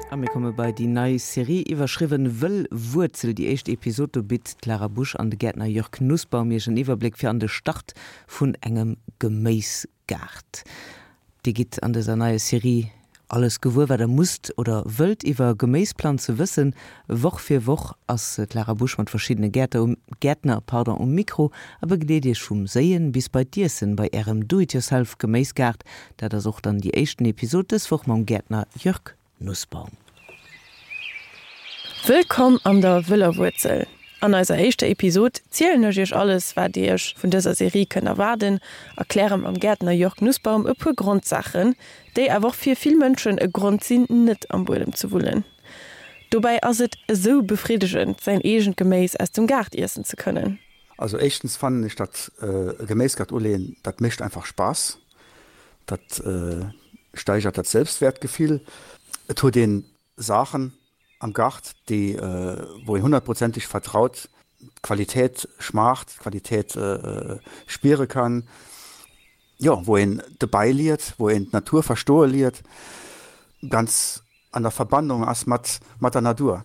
A mir komme bei déi nei Serie, iwwerschriwwen Wëll Wuerzel. Déi éischt Episod, do bitt d'Clara Busch an de Gäertner Jörg Nussbaum iech en Iwwerbléck fir an de Start vun engem Geméisgaart. Dir gitt an dëser neier Serie alles gewuer, wat der musst oder wëllt iwwer Geméisplanze wëssen. Woch fir Woch ass d'Lara Busch mat verschiddene Gäerter um, Gäertner, pardon, um Mikro a begleet iech vum Séien bis bei d'Iessen bei ärem Do-it-yourself Geméisgaart. Dat ass och dann déi éischten Episod dës Woch mam Gäertner Jörg Nussbaum. Wëllkomm an der Wëller Wuerzel! An eiser éischter Episod zielen ech iech alles, wat dir iech vun dëser Serie kënnt erwaarden, erkläre mam Gäertner Jörg Nussbaum e puer Grondsaachen, déi awer och fir vill Mënschen e Grond sinn, net am Buedem ze wullen. Dobäi ass et esou befriddegend, säin eegent Geméis aus dem Gaart iessen ze kënnen. Also éischtens fannen ech dat e Geméisgaart uleeën, dat mécht einfach Spaass, dat steigert dat Selbstwertgefill. Et huet een Saachen am Gart, déi wou een honnertprozenteg vertraut, d'Qualitéit schmaacht, d'Qualitéit spiere kann, jo wou een dobäi liert, wou een d'Natur verstoe liert, ganz an der Verbannung ass mat mat der Natur.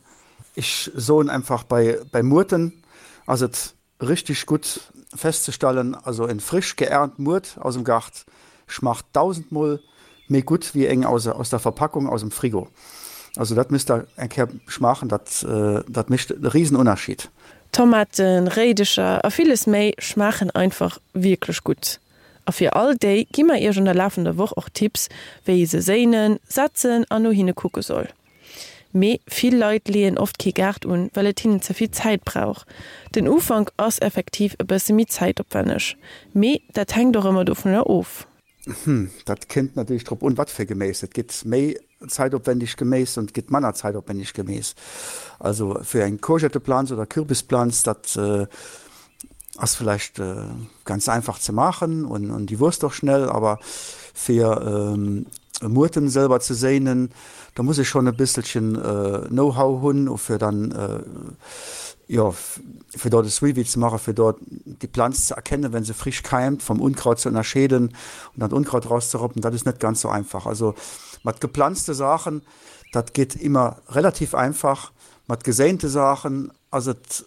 Ech soen einfach bei bei Muerten ass et Richteg gutt festzestellen, also en frisch geernt Muert aus dem Gart schmacht dausendmol méi gutt wéi eng aus der Verpackung aus dem Frigo. Also dat misst der eng Kéier schmaachen, dat dat mécht e riesen Ënnerscheed. Tomaten, Réidecher a villes méi schmaachen einfach wierklech gutt. A fir all déi gi mer iech an der lafender Woch och Tipps wéi ee se séinen, setzen an no hinne kucke soll. Mee vill Leit leeën oft kee Gaart un, well et hinnen ze vill Zäit brauch. Den Ufank ass effektiv e bësse méi zäitopwänneg, mee dat hänkt och ëmmer dovunner of. Hm, dat kënnt natierlech drop un, wat fir Geméis. Et gëtt méi zäitopwändeg Geméis an et gëtt manner zäitopwändeg Geméis. Also fir eng Courgetteplanz oder Kürbisplanz, dat ass villäicht ganz einfach ze maachen an déi wuesst och schnell, awer fir Muerten selwer ze séinen, da muss ee schonn e bësselchen Know-how hunn fir dann jo fir dort e Suivi ze maachen, fir dort déi Planz ze erkennen, wenn se frisch keimt, vom Unkraut ze ënnerscheeden an dann d'Unkraut rauszeroppen, dat ass net ganz sou einfach. Also mat geplanzte Saachen, dat geet immer relativ einfach, mat geséinte Saachen ass et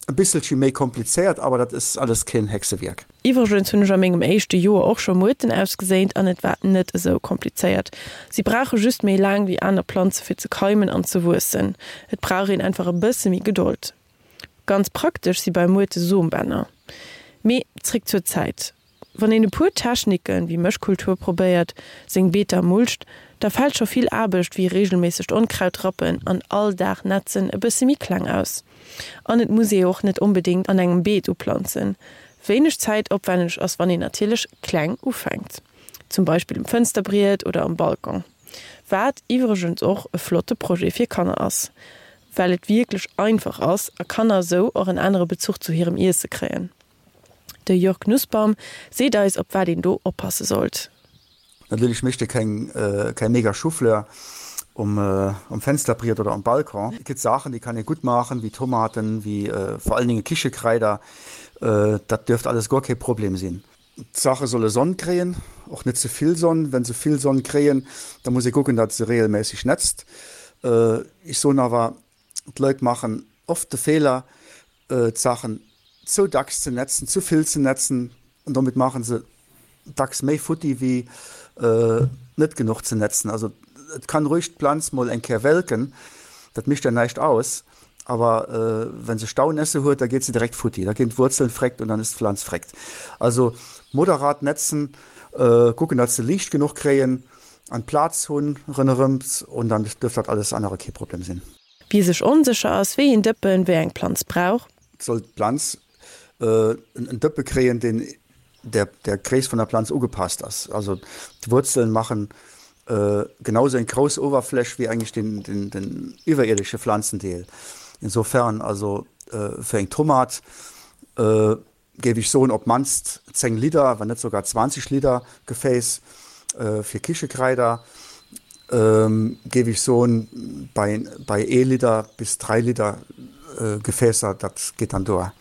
E bisselche méi komplizéiert, awer dat is alles keen Hexewierk. Iwwregens hunn ech a mengem éischte Joer och scho Muerten ausgeséint an et war net esou komplizéiert. Si brauche just méi laang wéi aner Planze fir ze keimen an ze wuessen. Et brauch een einfach e bësse méi Gedold. Ganz praktesch si bei Muerte Sombänner. Mee zréck zur Zäit. Wann een e puer Techniken, wéi Mëschkultur probéiert, seng Beeter mulcht, da fält scho vill Aarbecht wéi regelméissegt Onkraut rappen an all Dag netzen e bësse méi kleng aus. An et muss ee och net onbedéngt an engem Beet uplanzen. Wéineg zäitopwänneg ass wann een natierlech kleng ufänkt, zum Beispill um Fënsterbriet oder um Balcon, wat iwwregens och e flotte Projet fir Kanner ass, well et wierklech einfach ass a Kanner esou och en anere Bezuch zu hirem Iesse kréien. De Jörg Nussbaum seet eis op wat een do oppasse sollt. Natierlech mécht e keng keng mega Choufleur um um Fensterbriet oder um Balcon. Et gëtt Saachen déi kann ee gutt maachen, wéi Tomaten, wéi vor allen Dinge Kichekraider, dat dierft alles guer kee Problem sinn. D'Saache solle Sonn kréien, och net ze vill Sonn. Wenn se vill Sonn kréien, da muss ee kucken, datt se regelméisseg netzt. Ech soen awer, d'Leit maachen oft de Feeler, d'Saachen ze dacks ze netzen, ze vill ze netzen an domat maache se dacks méi futti wéi net genuch ze netzen. Also et kann ruhig d'Planz mol eng Kéier welken, dat mécht der näischt aus, awer wenn se Staunässe huet, da geet se direkt futti, da ginn d'Wuerzeln freckt und dann ist d'Pflanz freckt. Also moderat netzen, kucken datt se Liicht genuch kréien an Plaz hunn rënnerëms und dann dürft dat alles anere kee Problem sinn. Wie sech onsécher ass, wéi een Dëppen wéi eng Planz brauch. Soll d'Planz en Dëppe kréien, deen der der Gréisst vun der Planz ugepasst ass. Also d'Wuerzelen maachen genau sou eng grouss Oberfläch wéi eigentlich den den den iwwerierdesche Pflanzendeel. Insofern also fir eng Tomat géif ech soen, op d'mannst 10 Liter, wann net sougar 20 Liter Gefäß fir Kichekraider, géif ech soen, bei, bei ee Liter bis 3 Liter Gefäßer, dat geet dann duer.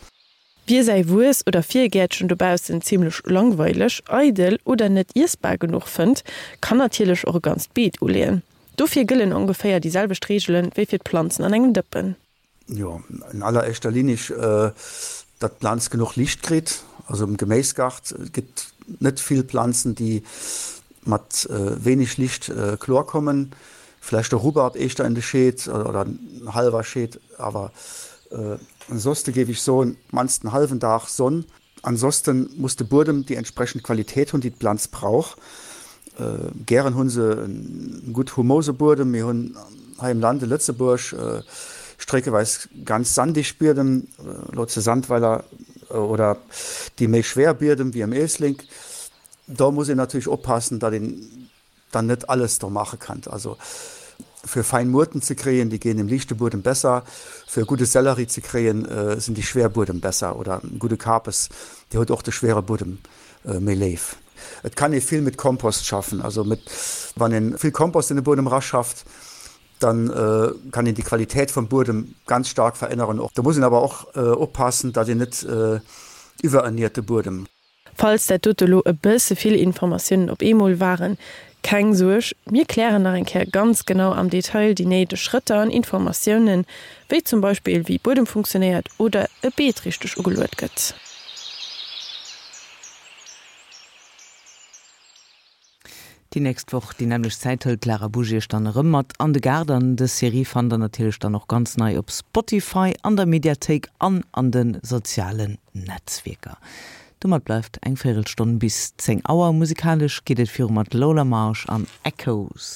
Wie säi Wuess oder Virgäertchen dobaussen zimmlech langweileg, eidel oder net iessbar genuch fënnt, kann natierlech och e ganzt Beet uleeën. Dofir gëllen ongeféier déi selwecht Reegelen wéi fir d'Planzen an engem Dëppen. Jo, in alleréischter Linie, datt d'Planz genuch Liicht kritt. Also am Geméisgart gëtt net vill Planzen, déi mat wéineg Liicht kloer kommen. Vläicht de Rubbarb éischter in de Scheed oder en hallwer Scheed, awer ansonsten géif ech soen, d'mannst en hallwen Dag Sonn. Ansonsten muss de Buedem déi entsprechend Qualitéit hunn, déi d'Planz brauch. Gären hu se en gutt humose Buedem. Mir hunn hei im Land, in Lëtzebuerg, streckeweis ganz sandig Biedem, elo zu Sandweiler, oder déi méi schwer Biedem wéi am Éislek. Do muss een natierlech oppassen, datt een dann net alles do maache kann. Also fir fein Muerten ze kréien, déi ginn im liichte Buedem besser, fir e gudde Sellerie ze kréien, sinn déi schwer Buedem besser oder e gudde Kapes, dee huet och de schwere Buedem méi léif. Et kann ee vill mit Kompost schaffen, also mit, wann een vill Kompost in de Buedem raschafft, dann kann een déi Qualität vum Buedem ganz stark veränneren. Do muss een awer och oppassen, datt een net iwwererniert de Buedem. Falls dat dote lo e bësse vill Informatiounen op eemol waren, keng Suerg, mir klären nach eng Kéier ganz genau am Detail déi néideg Schrëtter an Informatiounen, wéi zum Beispill wéi Buedem funktionéiert oder e Beet richteg ugeluet gëtt. Déi nächst Woch déi nämmlecht Zäit hëlt d'Lara Busch iech dann erëm mat an de Gaart an dës Serie fannt der natierlech dann och ganz nei op Spotify, an der Mediathéik an an de sozialen Netzwierker. Domat bleift eng Véirelstonn bis 10 Auer. Musikalesch geet et viru mat Lola Marsh an Echoes.